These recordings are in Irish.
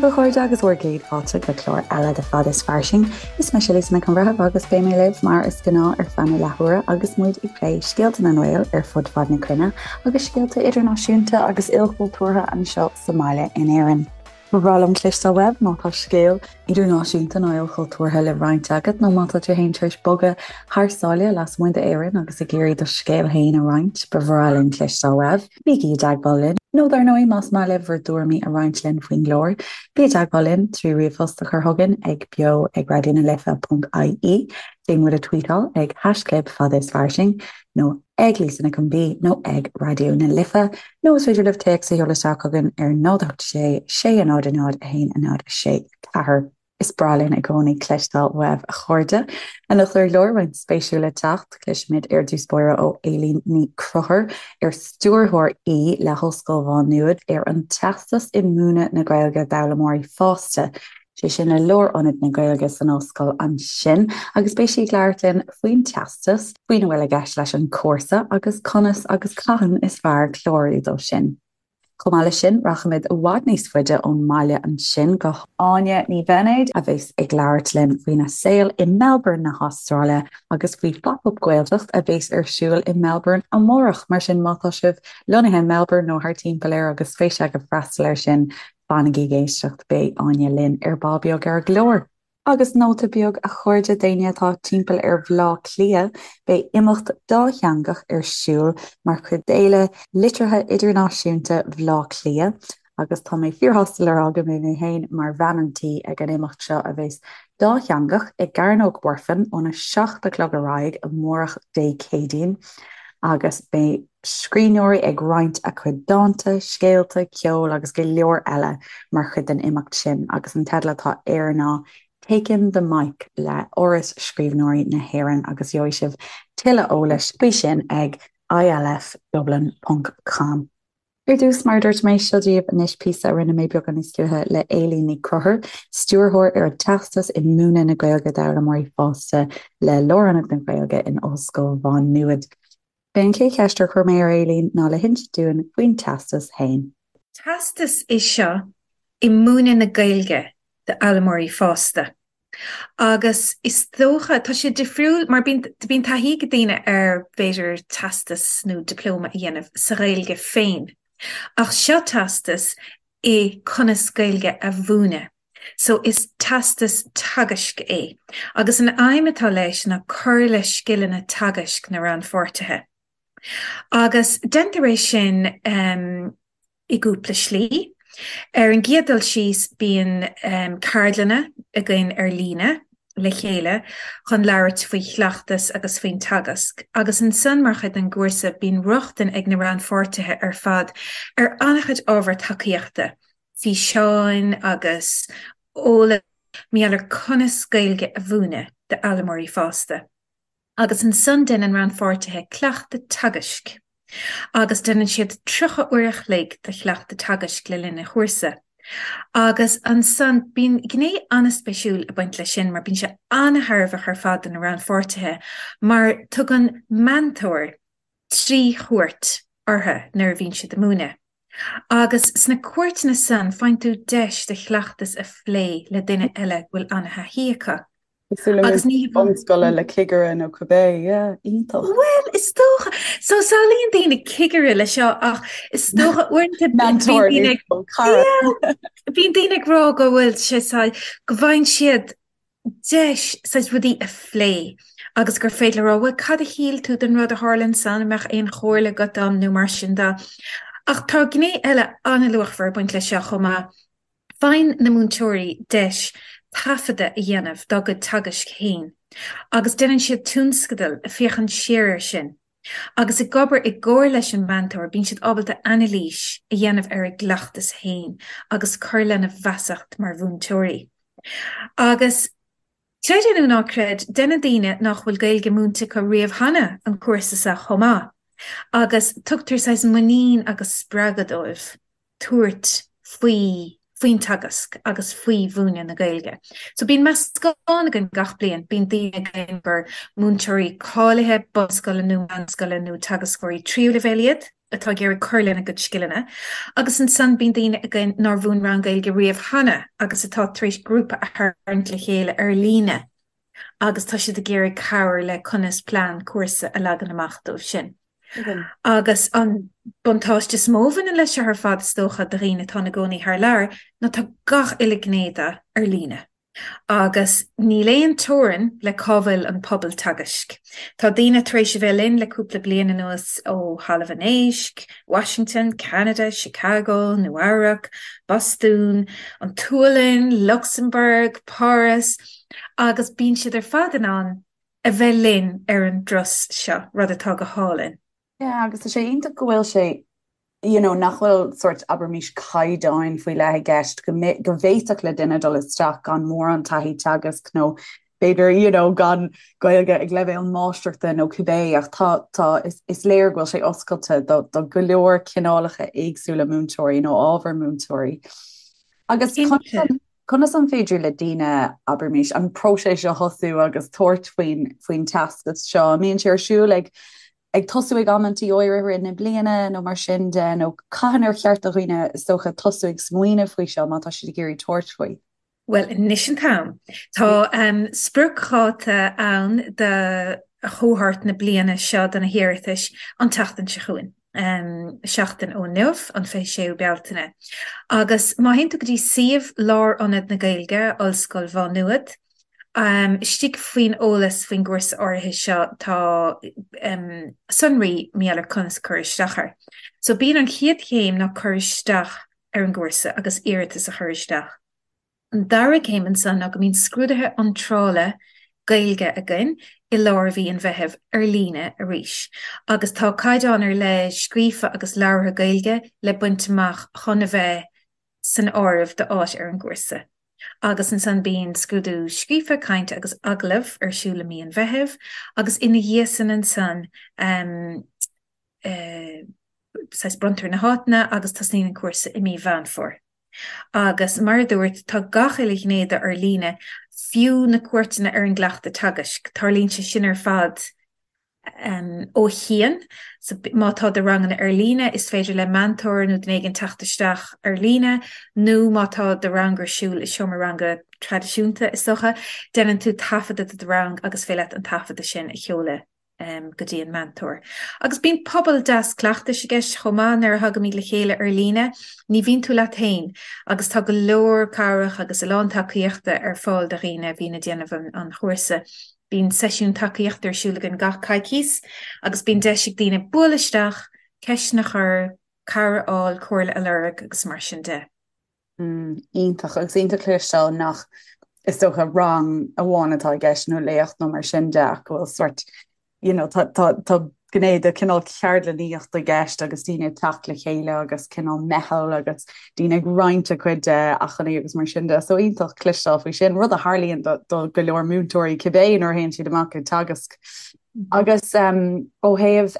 a chairde agus bhur gcéad fáilte go clár eile de Fad is Fairsing. Is mise Lisa Nic an Bhreithimh agus beidh mé libh mar is gnáth ar feadh na leathuaire agus muid ag plé scéalta na nGael ar fud fad na cruinne agus scéalta idirnáisiúnta agus ilchultúrtha anseo sa mbaile in Éirinn. Ba bhreá liom cloisteáil uaibh má tá scéal idirnáisiúnta nó ilchultúrtha le roinnt agat nó má tá tú féin tar éis bogadh thar sáile lasmuigh d'Éirinn agus ag iarraidh do scéal féin a roinnt, ba bhreá linn cloisteáil uaibh. Bígí i dteagmháil linn, nó dar ndóigh más maith libh bhur dtuairimí a roinnt linn faoin gclár, bí i dteagmháil linn trí ríomhphost a chur chugainn ag beo ag raidionalife.ie, déan muid a tweetáil ag haischlib fad is fairsing nó ag Lisa Nic an B nó ag Raidió na Life, nó is féidir libh téacs a sheoladh isteach chugainn ar 0 8 6 6 0 0 1 0 6 4. Is breá linn i gcónaí cloisteáil uaibh, a chairde. Anocht ar an gclár, roinnt spéisiúil le teacht, cloisfimid ar dtús báire ó Éilín Ní Chonchúir, ar stiúrthóir í le hOllscoil Mhá Nuad ar an Teastas i Múineadh na Gaeilge d'Fhoghlaimeoirí Fásta. sé sin le Lárionad na Gaeilge san ollscoil ansin, agus beidh sí ag labhairt linn faoin teastas, faoina bhfuil i gceist leis an chúrsa agus conas agus cathain is fearr clárú dó sin. Chomh maith leis sin, rachaimid i bhfad níos faide ón mbaile ansin go hÁine Ní Bheinéid, a bheas ag labhairt linn faoina saol i Melbourne na hAstráile agus faoi Phop Up Gaeltacht a bheas ar siúl i Melbourne amárach. Mar sin, má tá sibh lonnaithe i Melbourne nó thart timpeall air agus spéis agaibh freastal air sin, Fanaigí ag éisteacht, beidh Áine linn ar ball beag ar an gclár. Agus nóta beag, a chairde, d'éinne atá timpeall ar Bhleá Cliath, beidh imeacht dátheangach ar siúl mar chuid d'Fhéile Liteartha Idirnáisiúnta Bhleá Cliath agus tá mé fíorshásta le rá go mbeidh mé féin mar bhean an tí ag an imeacht seo a bheas dátheangach i gCearnóg Mhuirfean óna 7 a chlog ar aghaidh amárach Dé Céadaoin agus beidh scríbhneoirí ag roinnt a cuid dánta, scéalta, ceol agus go leor eile mar chuid den imeacht sin agus an teideal atá air ná 'Taking the Mic' le Áras Scríbhneoirí na hÉireann agus gheobhaidh sibh tuilleadh eolais faoi sin ag ilfdublin ponc com. Ar dtús, mar a dúirt mé, seo daoibh anois píosa a rinne mé beagán níos luaithe le Éilín Ní Chonchúir, stiúrthóir ar an Teastas i Múineadh na Gaeilge d'Fhoghlaimeoirí Fásta le Lárionad na Gaeilge in Ollscoil Mhá Nuad. B'é an chéad cheist ar chuir mé ar Éilín ná le hinsint dúinn faoin teastas féin. Teastas é seo i múineadh na Gaeilge d'fhoghlaimeoirí fásta. Agus is dócha, tá sé difriúil mar bíonn, bíonn taithí ag daoine ar b'fhéidir teastas nó dioplóma a dhéanamh sa Ghaeilge féin. Ach seo teastas i conas Gaeilge a mhúineadh. So is teastas teagaisc é, agus an aidhm atá leis ná cur le scileanna teagaisc na rannpháirtithe. Agus déantar é sin i gcúpla slí. Ar an gcéad dul síos bíonn ceardlanna againn ar líne le chéile chun labhairt faoi chleachtas agus faoin teagasc, agus ansan mar chuid den gcúrsa bíonn rochtain ag na rannpháirtithe ar fad ar an-chuid ábhar tacaíochta, físeáin agus eolas mar gheall ar conas Gaeilge a mhúineadh d'fhoghlaimeoirí fásta. Agus ansan déanann rannpháirtithe cleachtadh teagaisc agus déanann siad 30 uair a chloig de chleachtadh teagaisc le linn an chúrsa. Agus ansan bíonn gné an-spéisiúil ag baint leis sin mar bíonn sé an-thairbheach ar fad do na rannpháirtithe mar tugann meantóir 3 chuairt orthu nuair a bhíonn siad ag múineadh. Agus sna cuairteanna san faigheann tú deis do chleachtas a phlé le duine eile go bhfuil an-thaithí acu. Cosúil le Agus ní bunscoile le cigire nó cibé, yeah, iontach. Bhuel, is dócha. So samhlaíonn daoine cigire le seo ach is dócha uaireanta Mentor nó cara. Yeah, bíonn daoine ag rá go bhfuil sé go bhfaigheann siad deis saghas rudaí a phlé agus gur féidir le rá, bhuel, cad a shíl tú den rud a tharla ansan, an mbeadh aon chomhairle agat dom nó mar sin de. Ach tá gné eile an-luachmhar ag baint leis seo chomh maith. Faigheann na múinteoirí deis taifeadadh a dhéanamh dá gcuid teagaisc féin agus déanann siad tionscadal ag féachaint siar air sin. Agus ag obair i gcomhar leis an meantóir, bíonn siad ábalta anailís a dhéanamh ar a gcleachtas féin agus cur lena bhfeasacht mar mhúinteoirí. Agus, creid é nó ná creid, déanann daoine nach bhfuil Gaeilge múinte acu riamh cheana an cúrsa seo chomh maith, agus tugtar saghas muinín agus spreagadh dóibh tabhairt faoi. faoin teagasc agus faoi mhúineadh na Gaeilge. So bíonn meascán againn gach bliain, bíonn daoine againn gur múinteoirí cáilithe bunscoile nó meánscoile nó teagascóirí tríú leibhéal iad atá ag iarraidh cur lena gcuid scileanna agus ansan bíonn daoine againn nár mhúin rang Gaeilge riamh cheana agus atá tar éis grúpa a tharraingt le chéile ar líne agus tá siad ag iarraidh cabhair le conas plean cúrsa a leagan amach dóibh sin. Agus an buntáiste is mó a bhaineann leis seo ar fad, is dócha, do dhaoine atá ina gcónaí thar lear, ná tá gach uile ghné de ar líne. Agus níl aon teorainn le cá bhfuil an pobal teagaisc. Tá daoine tar éis a bheith linn le cúpla bliain anuas ó Thalamh an Éisc, Washington, Ceanada, Chicago, Nua Eabhrac, Bostún, an tSualainn, Lucsamburg, Páras, agus bíonn siad ar fad in ann a bheith linn ar an dturas seo, rud atá go hálainn. Yeah, agus tá sé iontach go bhfuil sé, you know, nach bhfuil sórt, abraimis, caighdeáin faoi leith i gceist, go go bhféadfadh le duine dul isteach gan mórán taithí teagaisc nó b'fhéidir, you know, gan Gaeilge ag leibhéal máistreachta nó cibé, ach tá, tá, is, is léir go bhfuil sé oscailte do, do go leor cineálacha éagsúla múinteoirí nó ábhar múinteoirí. Agus Cinnte. Conas an féidir le daoine, abraimis, an próiseas seo a thosú agus tabhairt faoin faoin teastas seo? An mbíonn sé ar siúl ag ag tosú ag amantaí áirithe i rith na bliana nó mar sin de, nó cathain ar cheart do dhaoine, is dócha, tosú ag smaoineamh faoi seo má tá siad ag iarraidh tabhairt faoi? Bhuel, anois an t-am. Tá spriocdháta ann do chohórt na bliana seo do na hiarratais an tseachtain seo chugainn. seachtain ó inniu, an 26ú Bealtaine. Agus má théann tú go dtí suíomh Lárionad na Gaeilge, Ollscoil Mhá Nuad, istigh faoin eolas faoin gcúrsa áirithe seo tá sonraí mar gheall ar conas cur isteach air. So bíonn an chéad chéim ná cur isteach ar an gcúrsa agus iarratas a chur isteach. An dara céim ansan ná go mbíonn scrúduithe iontrála Gaeilge againn i lár mhí an Mheithimh ar líne arís agus tá caighdeán ar leith scríofa agus labhartha Gaeilge le baint amach chun a bheith san áireamh d'áit ar an gcúrsa. Agus ansan bíonn scrúdú scríofa, cainte agus agallamh ar siúl i mí an Mheithimh agus ina dhiaidh san ansan saghas bronntar na háiteanna agus tosnaíonn an cúrsa i mí Mheán Fómhair. Agus mar a dúirt, tá gach uile ghné de ar líne, fiú na cuairteanna ar an gcleachtadh teagaisc. Tarlaíonn sé sin ar fad ó chian. So má tá do ranganna ar líne, is féidir le meantóir nó duine éigin teacht isteach ar líne, nó má tá do rang ar siúl i seomra ranga traidisiúnta, is dócha, déanann tú taifeadadh de do rang agus féidir leat an taifeadadh sin a sheoladh. go dtí an meantóir. Agus bíonn pobal deas cleachtais i gceist chomh maith nuair a thagaimid le chéile ar líne, ní bhíonn tú leat féin agus tá go leor cabhrach agus a lán tacaíochta ar fáil do dhaoine a bhíonn ag déanamh an chúrsa. Bíonn seisiún tacaíochta ar siúl againn gach coicís agus bíonn deis ag daoine bualadh isteach, ceisteanna a chur, cabhair a fháil, comhairle a lorg agus mar sin de. Iontach, agus iontach cloisteáil nach, is dócha, rang amháin atá i gceist nó léacht nó mar sin de ach go bhfuil sort, you know, tá, tá, tá gné de cineál ceardlannaíocht i gceist agus daoine ag teacht le chéile agus cineál meitheal agus daoine ag roinnt a gcuid acmhainní agus mar sin de. So iontach cloisteáil faoi sin, rud a tharlaíonn do, do go leor múinteoirí cibé nuair a théann siad amach ag teagasc. Agus ó thaobh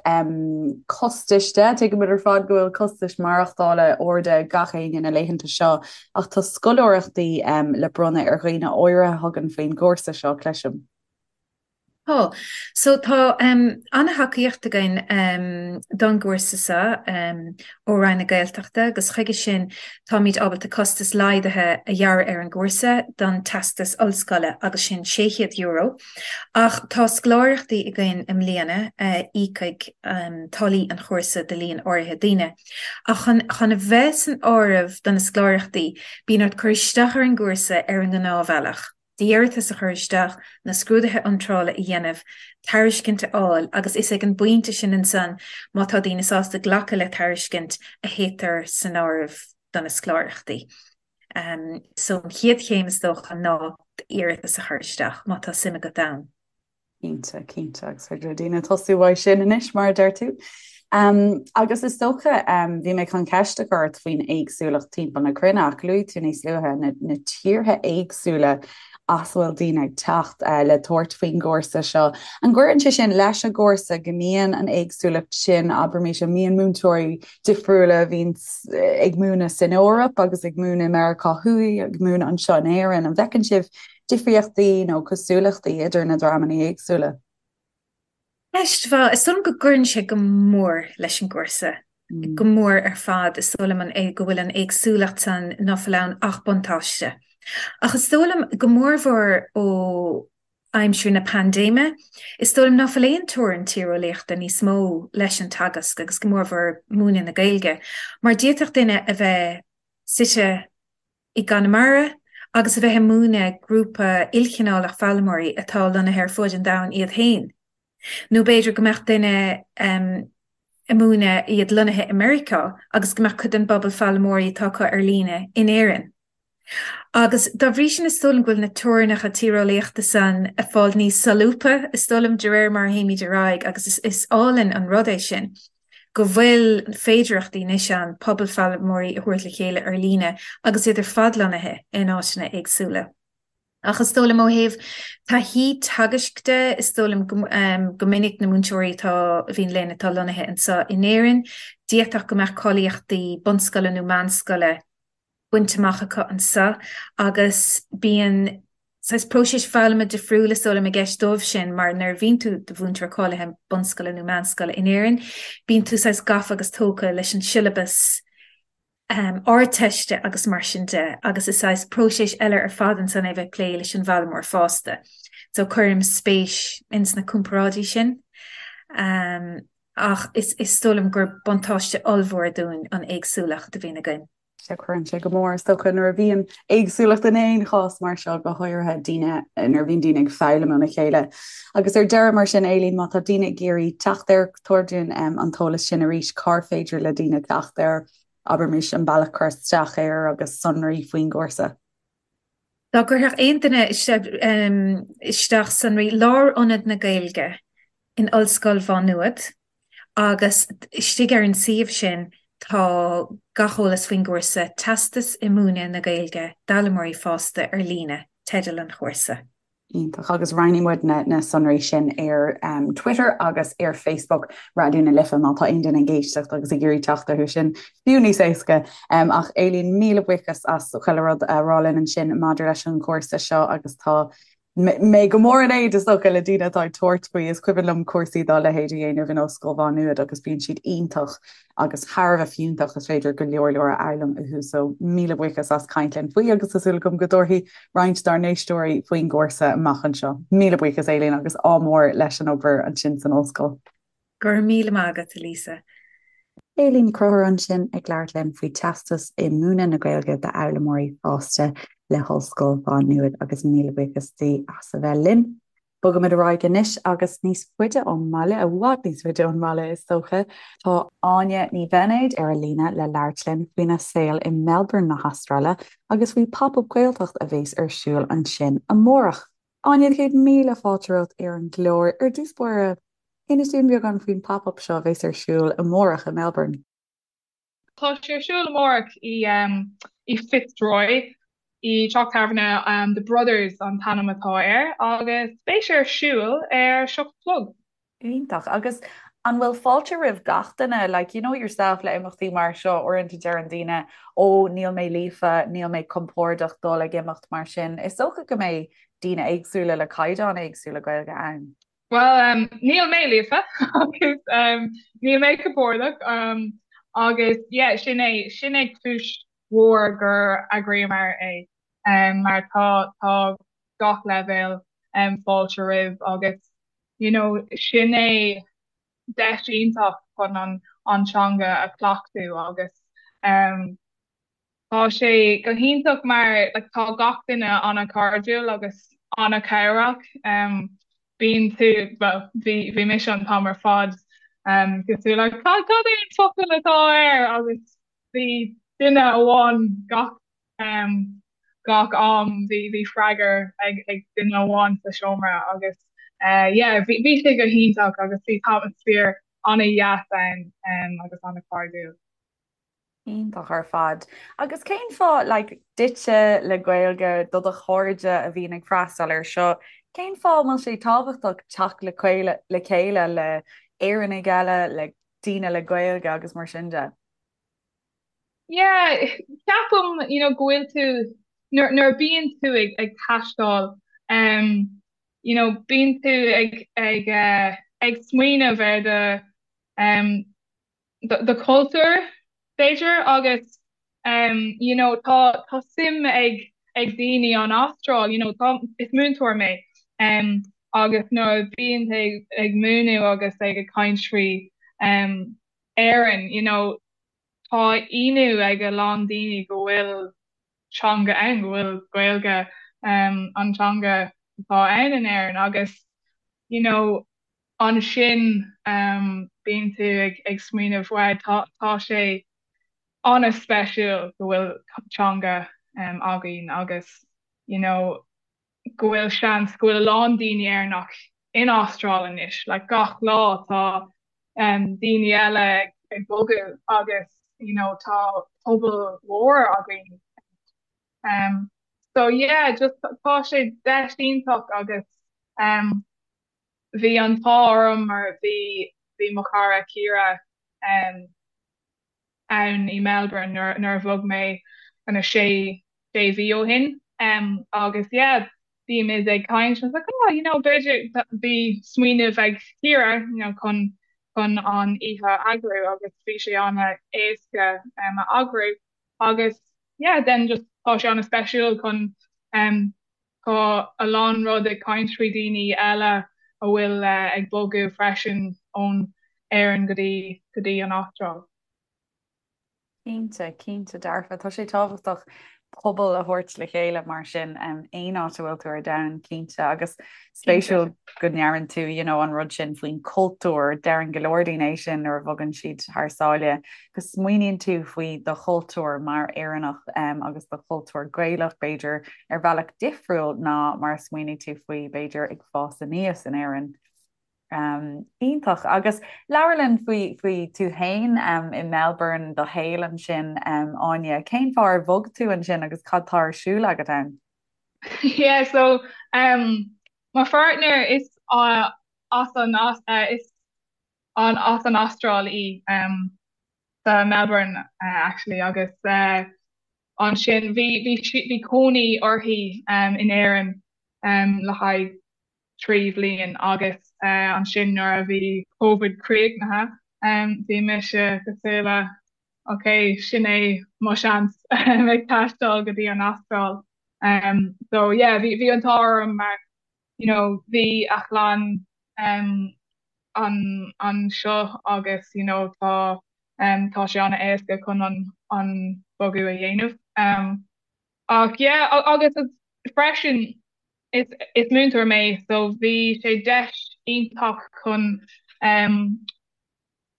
costais de, tuigimid ar fad go bhfuil costais maireachtála arda ag gach éinne na laethanta seo, ach tá scoláireachtaí le bronnadh ar dhaoine áirithe a thugann faoin gcúrsa seo, cloisim. Tá. So tá an-thacaíocht againn don gcúrsa seo ó Roinn na Gaeltachta agus chuige sin táimid ábalta costas laghdaithe a ghearradh ar an gcúrsa don teastas ollscoile agus sin €600. Ach tá scoláireachtaí againn i mbliana a íocfaidh táillí an chúrsa do líon áirithe daoine. Ach chun chun a bheith san áireamh do na scoláireachtaí, bíonn ort cur isteach ar an gcúrsa ar an ngnáthbhealach, d'iarratas a chur isteach, na scrúduithe iontrála a dhéanamh, tairiscint a fháil agus is ag an bpointe sin ansan, má tá daoine sásta glacadh le tairiscint, a théitear san áireamh do na scoláireachtaí. So an chéad chéim is dócha ná d'iarratas a chur isteach má tá suim agat ann. Cinnte, cinnte, agus féidir le daoine tosú uaidh sin anois mar a deir tú. Um, agus is dócha um, bhí mé chun ceist a chur ort faoin éagsúlacht timpeall na cruinne ach luaigh tú níos luaithe na, na tíortha éagsúla. as a bhfuil daoine ag teacht le tabhairt faoin gcúrsa seo. An gcuireann sé sin leis an gcúrsa go mbíonn an éagsúlacht sin, abraimis, an mbíonn múinteoirí difriúla a bhíonn ag múineadh san Eoraip agus ag múineadh i Meiriceá Thuaidh, ag múineadh anseo in Éirinn, an bhfeiceann sibh difríochtaí nó cosúlachtaí idir na dreamanna éagsúla? Ceist mhaith. Is dóigh liom go gcuireann sé go mór leis an gcúrsa, go mór ar fad. Is dóigh liom an go bhfuil an éagsúlacht san ná fuil ann ach buntáiste. Ach is dóigh liom, go mórmhór ó aimsir na paindéime, is dóigh liom ná fuil aon teorainn tíreolaíochta níos mó leis an teagasc agus go mórmhór múineadh na Gaeilge, mar d'fhéadfadh duine a bheith suite i gConamara agus a bheith ag múineadh grúpa ilchineálach foghlaimeoirí atá lonnaithe ar fuaid an domhain iad féin. Nó b'fhéidir go mbeadh duine ag múineadh iad lonnaithe i Meiriceá agus go mbeadh cuid den bpobal foghlaimeoirí atá acu ar líne in Éirinn. Agus dá bhrí sin is dóigh liom go bhfuil na teorainneacha tíreolaíochta san ag fáil níos solúbtha, is dóigh liom, de réir mar a théimid ar aghaidh agus is álainn an rud é sin. go bhfuil féidearthachtaí anois ann pobal foghlaimeoirí a thabhairt le chéile ar líne agus iad ar fad lonnaithe in áiteanna éagsúla. Ach is dóigh liom ó thaobh taithí teagaisc de, is dóigh liom go minic na múinteoirí atá, a bhíonn linn atá lonnaithe anseo in Éirinn, d'fhéadfadh go mbeadh cáilíochtaí bunscoile nó meánscoile bainte amach acu anseo agus bíonn saghas próiseas foghlama difriúil is dóigh liom i gceist dóibh sin mar nuair a bhíonn tú i do mhúinteoir cáilithe bunscoile nó meánscoile in Éirinn bíonn tú saghas gafa agus tógtha leis an siollabas Ardteiste agus mar sin de agus is saghas próiseas eile ar fad ansan é bheith ag plé leis an bhfoghlaimeoir fásta. So cuirim spéis ins na comparáidí sin. Ach is is dóigh liom gur buntáiste ollmhór dúinn an éagsúlacht a bhíonn againn. Sea, cuireann sé go mór, is dócha, nuair a bhíonn éagsúlacht in aon chás mar seo, go háirithe daoine, nuair a bhíonn daoine ag foghlaim óna chéile. Agus ar deireadh, mar sin, Aileen, má tá daoine ag iarraidh teacht air, tabhair dúinn an t-eolas sin arís, cár féidir le daoine teacht air, abraimis, an bealach cur isteach air agus sonraí faoin gcúrsa. Dá gcuirfeadh aon duine isteach sonraí Lárionad na Gaeilge in Ollscoil Mhá Nuad agus istigh ar an suíomh sin tá gach eolas faoin gcúrsa Teastas i Múineadh na Gaeilge d'Fhoghlaimeoirí Fásta ar Líne, teideal an chúrsa. Iontach. Agus roinnfidh muid na sonraí sin ar Twitter agus ar Facebook Raidió na Life má tá aon duine ag éisteacht agus ag iarraidh teacht orthu sin, fiú níos éasca. Ach Aileen, míle buíochas as chuile rud a rá linn ansin maidir leis an chúrsa seo agus tá mé go mór in éad, is dócha, le daoine atá ag tabhairt faoi. Is cuimhin liom cúrsaí dá leithéid a dhéanamh in Ollscoil Mhá Nuad agus bíonn siad iontach agus thar a bheith fiúntach, is féidir go leor leor a fhoghlaim uathu. So míle buíochas as caint linn faoi agus tá súil agam go dtabharfaidh roinnt dár n-éisteoirí faoin gcúrsa amach anseo. Míle buíochas Aileen agus ádh mór leis an obair ansin san ollscoil. Go raibh míle maith agat, a Lisa. Aileen Ní Chonchúir ansin ag labhairt linn faoi Teastas i Múineadh na Gaeilge d'Fhoghlaimeoirí Fásta le hOllscoil Mhá Nuad agus míle buíochas di as a bheith linn. Bogaimid ar aghaidh anois agus níos faide ón mbaile, i bhfad níos faide ón mbaile is dócha, tá Áine Ní Bheinéid ar an líne le labhairt linn faoina saol i Melbourne na hAstráile agus faoi Pop Up Gaeltacht a bheas ar siúl ansin amárach. Áine, 100,000 fáilte romhat ar an gclár. Ar dtús báire, inis dúinn beagán faoin Pop Up seo a bheas ar siúl amárach i Melbourne. Tá sé ar siúl amárach i Fitzroy i dteach tábhairne The Brothers an t-ainm atá air agus beidh sé ar siúl ar 7 a chlog. Iontach. Agus an bhfuil fáilte roimh gach duine? Like, you know yourself le imeachtaí mar seo, uaireanta deireann daoine, ó níl mé líofa, níl mé compordach dul ag imeacht mar sin. Is dócha go mbeidh daoine éagsúla le caighdeáin éagsúla Gaeilge ann. Bhuel, níl mé líofa agus níl mé compordach agus yeah, sin é, sin é cúis mhór gur eagraíomar é mar tá, tá gach leibhéal fáilte roimh agus you know sin é deis iontach chun an, an teanga a chleachtadh agus Tá sé go hiontach mar like tá gach duine an-chairdiúil agus an-chabhrach. Bíonn tú, bhuel, bhí bhí mise an t-am ar fad cosúil le cad cad é an focal atá air agus bhí duine amháin gach gach am bhí bhí freagra ag ag duine amháin sa seomra agus yeah bhí bhí sé go hiontach agus bhí atmaisféar an-dheas ann agus an-chairdiúil. Iontach ar fad. Agus cén fáth, like, duitse le Gaeilge, do do chairde a bhíonn ag freastal air seo, cén fáth a bhfuil sé tábhachtach teacht le le chéile le Éireannaigh eile, le daoine le Gaeilge agus mar sin de? Yeah, ceapaim, you know, go bhfuil tú, nuair, nuair a bíonn tú ag, ag taisteal, um, you know, bíonn tú ag, ag, uh, ag smaoineamh ar do, um, do chultúr, b'fhéidir, agus um, you know, tá, tá suim ag, ag daoine an Astráil, you know, tá, is múinteoir mé, um, agus nuair a bíonn tú ag, ag múineadh agus ag ag caint faoi um, Éirinn, you know, tá ionadh ag a lán daoine go bhfuil teanga ann, go bhfuil Gaeilge um, an teanga atá ann in Éirinn agus, you know, ansin bíonn tú ag smaoineamh wow tá tá sé an-speisiúil go bhfuil teanga againn agus you know go bhfuil seans go bhfuil a lán daoine Éireannach in Astráil anois like gach lá tá daoine eile ag bogadh agus you know tá pobal mhór againn um so yeah just tá sé deis iontach agus um Bhí an t-ádh orm mar bhí bhí mo chara Ciara ann i Melbourne nuair nuair a bhog mé ana sé sé mhí ó shin agus yeah bímid ag caint I was like oh you know b'fhéidir bhí smaoineamh ag Ciara you know chun chun an oíche a eagrú agus bhí sé ana éasca a eagrú agus yeah then just tá sé ana speisiúil chun Tá a lán rud ag caint faoi daoine eile a bhfuil ag bogadh freisin ón Éirinn go dtí go dtí an Astráil. Cinnte, cinnte dearfa. Tá sé tábhachtach pobal a thabhairt le chéile mar sin aon áit a bhfuil tú ar domhan, cinnte. Agus spéisiúil go ndeireann tú you know an rud sin faoin cultúr, deireann go leor daoine é sin nuair a bhogann siad thar sáile, go smaoiníonn tú faoi do chultúr mar Éireannach agus do chultúr Gaelach b'fhéidir ar bhealach difriúil ná mar a smaoinigh tú faoi b'fhéidir ag fás aníos in Éirinn. Iontach. Agus labhair linn faoi faoi tú féin i Melbourne, do shaol ansin, Áine. Cén fáth ar bhog tú ansin agus cad tá ar siúl agat ann? Yeah, so um, mo pháirtnéir is uh, as an uh, is an as an Astráil í um, sa Melbourne uh, actually agus uh, ansin bhí bhí bhí cónaí uirthi um, in Éirinn um, le haghaidh 3 bhliain agus uh, ansin nuair a bhí Covid críochnaithe um, bhí mise cosúil le ok sin é mo seans ag taisteal go dtí an Astráil. Um, so yeah, bhí bhí an t-ádh orm mar you know bhí a chlann um, an anseo agus you know tá um, tá sé an-éasca chun an an bogadh a dhéanamh. Um, ach yeah, agus freisin is is múinteoir mé so bhí sé deis iontach chun um,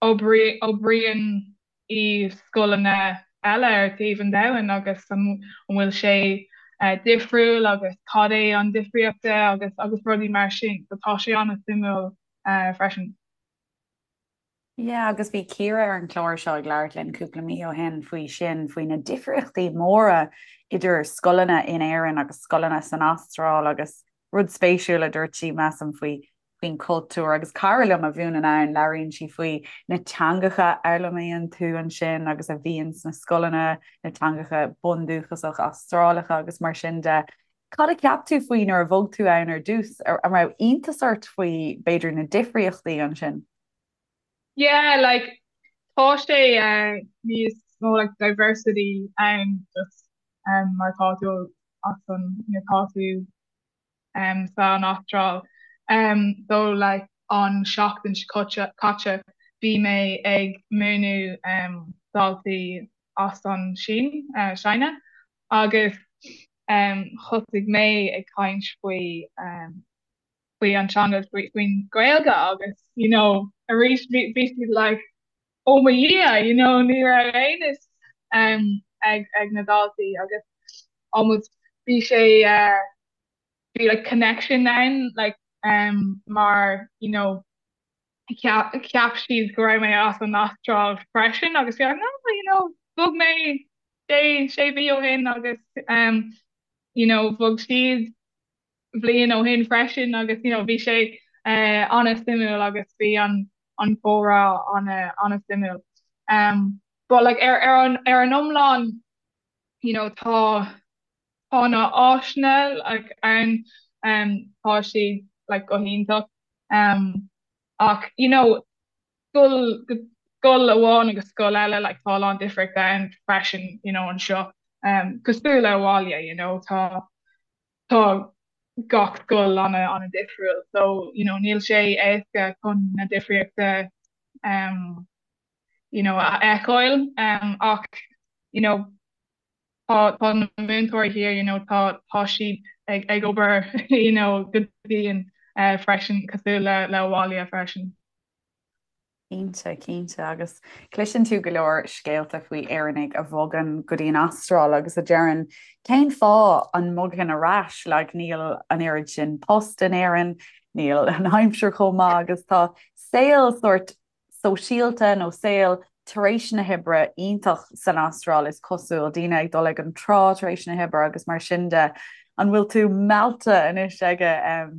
Oibríonn i scoileanna eile ar taobh an domhain agus an bhfuil sé difriúil agus cad é an difríocht agus agus rudaí mar sin. So tá sé an-suimiúil freisin. Yeah, agus bhí Ciara ar an chlár seo ag labhairt linn cúpla mí ó shin faoi sin, faoi na difríochtaí móra idir scoileanna in Éirinn agus scoileanna san Astráil agus rud spéisiúil a dúirt sí, measaim, faoi faoin chultúr agus cara liom a mhúineann ann, labhraíonn sí faoi na teangacha a fhoghlaimíonn tú ansin agus a bhíonn sna scoileanna, na teangacha bundúchasach Astrálacha agus mar sin de. Cad a cheap tú faoi nuair a bhog tú ann ar dtús? An raibh iontas ort faoi, b'fhéidir, na difríochtaí ansin? Yeah, like, tá sé níos mó like diversity ann just um, mar tá tú as an, you know, tá tú um, san Astráil. Um, so like an seachtain seo caite bhí mé ag múineadh um, daltaí as an Sín, uh, China agus um, thosaigh mé ag caint faoi um, faoi an teanga faoi faoin Ghaeilge agus you know arís bhí bhí siad like oh mo Dhia you know ní raibh aon fhios um, ag ag na daltaí agus almost bhí sé uh, bhí like connection ann like um, mar you know cheap, cheap siad go raibh mé as an Astráil freisin agus bhí like, no you know. bhog mé sé sé mhí ó shin agus um you know bhog siad bhliain ó shin freisin agus you know bhí sé uh an-suimiúil agus bhí an an comhrá an an-suimiúil. Um but like ar ar an ar an iomlán you know tá tá na áiseanna like ann um tá siad like go hiontach um ach you know scoil go scoil amháin agus scoil eile like tá a lán difríochta ann freisin you know anseo um cosúil le abhaile you know tá tá gach scoil ana ana difriúil so you know níl sé éasca chun na difríochta um you know a fheiceáil um ach you know tá tá na múinteoirí thiar you know tá tá siad ag ag obair you know go dian uh freisin cosúil le le abhaile freisin. Cinnte, cinnte. Agus cloiseann tú go leor scéalta faoi Éireannaigh a bhogann go dtí an Astráil agus a deireann cén fáth an mbogfainn ar ais, like níl an oiread sin post in Éirinn, níl an aimsir chomh maith agus tá saol sórt sóisialta nó saol tar éis na hoibre iontach san Astráil is cosúil, daoine ag dul ag an trá tar éis na hoibre agus mar sin de. An bhfuil tú meallta anois aige a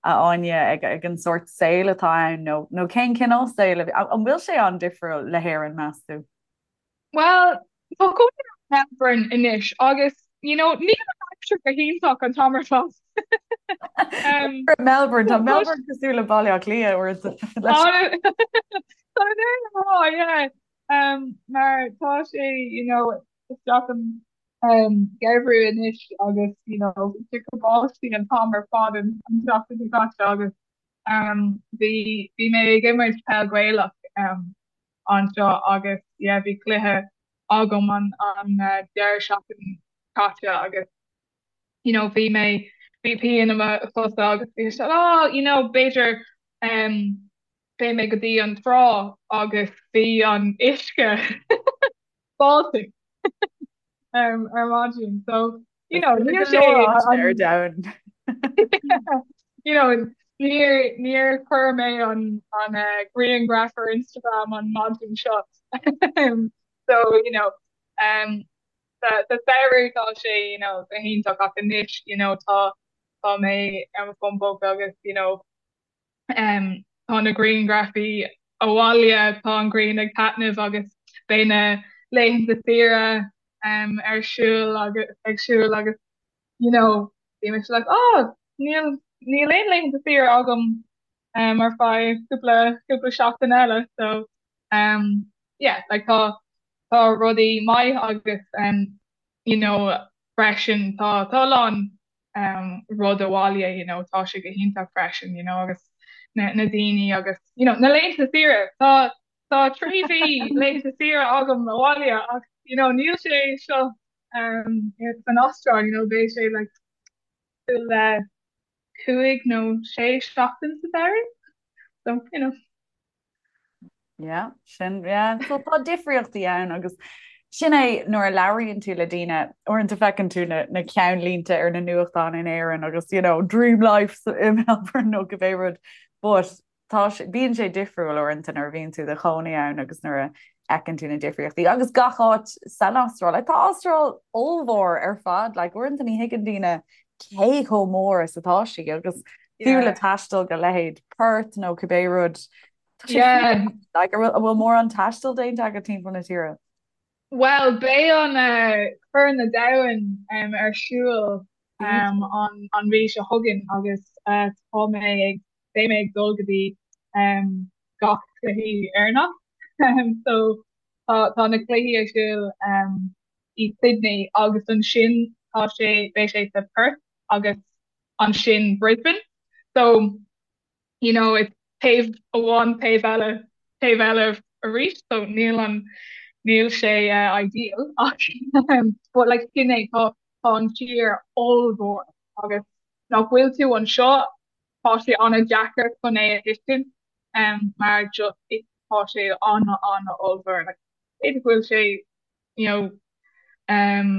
Áine, ag ag an sórt saoil atá ann nó nó cén cineál saoil a bhí, an bhfuil sé an-difriúil le hÉirinn, meas tú? Bhuel, tá cónaí orm i Melbourne anois agus, you know, níl an aimsir go hiontach an t-am ar fad. Um, Melbourne, tá Melbourne cosúil le Baile Átha Cliath uaireanta. Tá mé yeah. Um, mar tá sé, you know, isteach an um, geimhreadh anois agus, you know, ag báistí an t-am ar fad an an tseachtain seo caite agus um, bhí bhí mé ag imirt peil Gaelach um, anseo agus yeah bhí cluiche agam an an uh, deireadh seachtain caite agus you know bhí mé bhí pian i mo chosa agus bhí sé oh you know b'fhéidir um, beidh mé go dtí an trá agus bhí an uisce Baltic um, ar maidin so you know níl sé ar domhan. you know níor níor chuir mé an an uh, grianghraf ar Instagram an maidin seo so you know um, sa sa samhradh tá sé you know go hiontach ach anois you know tá tá mé ar mo fón póca agus you know um, tá na grianghrafaí abhaile, tá an ghrian ag taitneamh agus beidh na laethanta saoire um, ar siúl agus ag siúl agus you know, bhí mise like, oh, níl níl aon laethanta saoire agam um, ar feadh cúpla cúpla seachtain eile so um, yeah, like tá tá rudaí maith agus um, you know, freisin tá tá a lán um, rud abhaile, you know, tá sé go hiontach freisin, you know, agus na, na daoine agus, you know, na laethanta saoire. Tá tá 3 mhí laethanta saoire agam abhaile ach, you know, níl sé seo um, san Astráil, you know, beidh sé like le 5 nó 6 seachtain sa samhradh. So, you know. Yeah, sin yeah. So tá difríochtaí ann agus sin é nuair a labhraíonn tú le daoine uaireanta feiceann tú na, na ceannlínte ar na nuachtáin in Éirinn agus you know, dream life i Melbourne nó cibé rud but tá bíonn sé difriúil uaireanta nuair a bhíonn tú i do chónaí ann agus nuair a fheiceann tú na difríochtaí agus gach áit san Astráil. Like, tá Astráil ollmhór ar fad, like, uaireanta ní thuigeann daoine cé chomh mór is atá sí agus fiú le taisteal go leithéid Perth nó cibé rud Yeah. Like, an bhfuil mórán taistil déanta agat timpeall na tíre? Well, beidh an uh, Corn an Domhain um, ar siúl um, an, an mhí seo chugainn agus uh, tá mé ag beidh mé ag dul go dtí um, gach cluichí Éireannach. Um, so tá, tá na cluichí ar siúl um, i Sydney agus ansin tá sé beidh sé sa Perth agus ansin Brisbane. So you know, it's taobh amháin taobh eile taobh eile arís so níl an níl sé uh, ideal ach um, but like sin é tá tá an tír ollmhór agus nach bhfuil tú anseo tá sé an-deacair chun é a thuiscint um, mar just it, tá sé an an ollmhór like b'fhéidir go bhfuil sé you know um,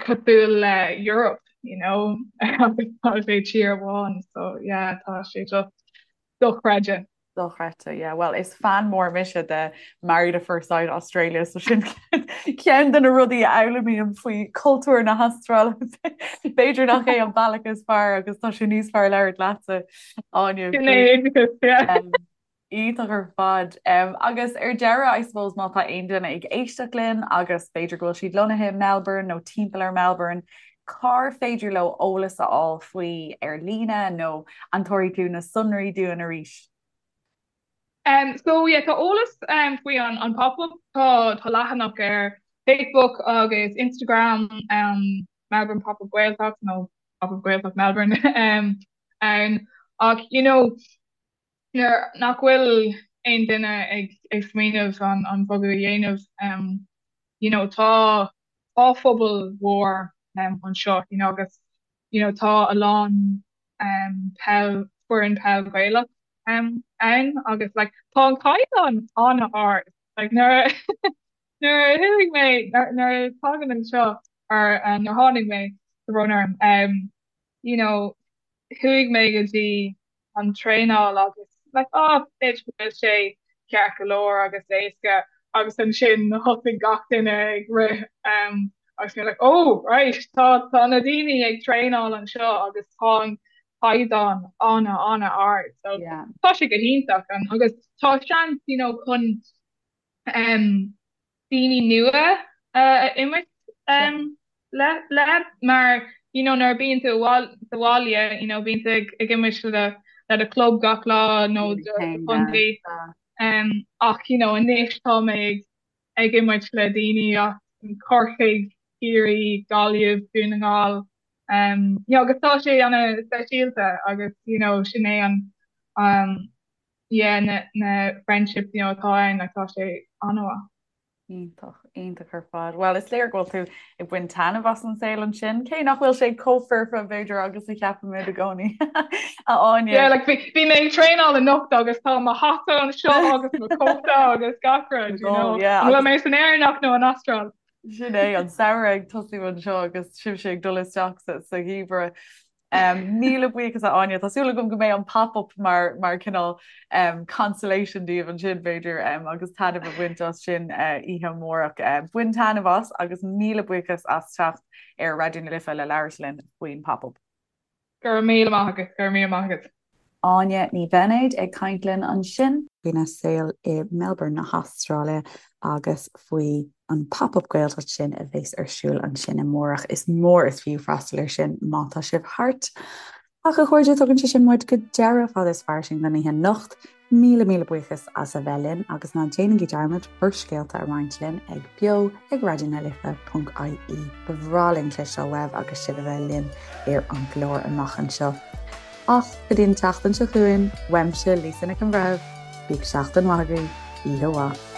cosúil le Europe, you know, agus tá sé tír amháin, so yeah, tá sé just dochreidte. Dochreidte, yeah. Well, is fan mór mise de Married at First Sight Australia, so sin ceann de na rudaí a fhoghlaimím faoi cultúr na hAstráile. B'fhéidir nach é an bealach is fearr agus tá sé níos fearr labhairt leatsa, Áine. Sin é oideachas, yeah. Iontach ar fad. Agus ar deireadh, I suppose, má tá aon duine ag éisteacht linn agus b'fhéidir go bhfuil siad lonnaithe i Melbourne nó timpeall ar Melbourne, cár féidir leo eolas a fháil faoi ar líne nó an dtabharfaidh tú na sonraí dúinn arís? Um, so yeah, tá eolas um, faoi an, an pop-up, tá, tá leathanach ar Facebook agus Instagram um, Melbourne Pop-up Gaeltacht nó Pop-up Gaeltacht Melbourne um, ann ach you know, nuair nach bhfuil aon duine ag ag smaoineamh an an bogadh a dhéanamh um you know tá tá phobal mhór um anseo you know agus you know tá a lán um peil foireann peil Gaelach um ann agus like tá an caighdeán an-ard like nuair nuair a chuaigh mé nuair a tagann anseo or um, nuair tháinig mé tá brón orm um you know, chuaigh mé go dtí an traenáil agus like oh b'fhéidir go bhfuil sé ceart go leor agus éasca agus ansin thosaigh gach duine ag rith um, agus mé like oh right tá tá na daoine ag traenáil anseo agus tá an caighdeán ana ana ard so yeah. tá sé go hiontach an agus tá seans you know chun um, daoine nua a imirt le le mar you know nuair a bíonn tú sa bhaile you know bíonn tú ag ag imirt le le do club gach lá nó do chontae um, ach you know anois tá mé ag ag imirt le daoine as Corcaigh, Ciarraí, Gaillimh, Dún na nGall um, you know, agus tá sé ana speisialta agus you know sin é an um, yeah na na friendships you know atá ann like tá sé an-mhaith. Iontach, iontach ar fad. Bhuel, is léir go bhfuil tú ag baint taitneamh as an saol ansin, cé nach bhfuil sé chomh foirfe b'fhéidir agus a cheapaimid i gcónaí. A Áine. Yeah, like bhí bhí mé ag traenáil anocht agus tá mo hata anseo agus mo cóta agus gach rud, you know. Yeah, An bhfuil mé san Éireannach nó an Astráil? Sin é an samhradh ag tosú anseo agus sibhse ag dul isteach sa sa gheimhreadh. Míle buíochas a Áine, tá súil agam go mbeidh an pop-up mar mar cineál consolation daoibh ansin b'fhéidir agus taitneamh a bhaint as sin oíche amárach. Bain taitneamh as agus míle buíochas as teacht ar Raidió na Life le labhairt linn faoin pop-up. Go raibh míle maith agat, go raibh míle maith agat. Áine Ní Bheinéid ag caint linn ansin. faoina saol i Melbourne na hAstráile agus faoi an Pop-Up Gaeltacht sin a bheas ar siúl ansin amárach. Is mór is fiú freastal air sin má tá sibh thart. Ach a chairde, tugann sé sin muid go deireadh Fada is Fairsing don oíche anocht. Míle míle buíochas as a bheith linn agus ná déanaigí dearmad bhur scéalta a roinnt linn ag beo ag raidionalife.ie. Ba bhreá linn cloisteáil uaibh agus sibh a bheith linn ar an gclár amach anseo. Ach go dtí an tseachtain seo chugainn, uaimse Lisa Nic an Bhreithimh, bíodh seachtain mhaith agaibh, oíche mhaith.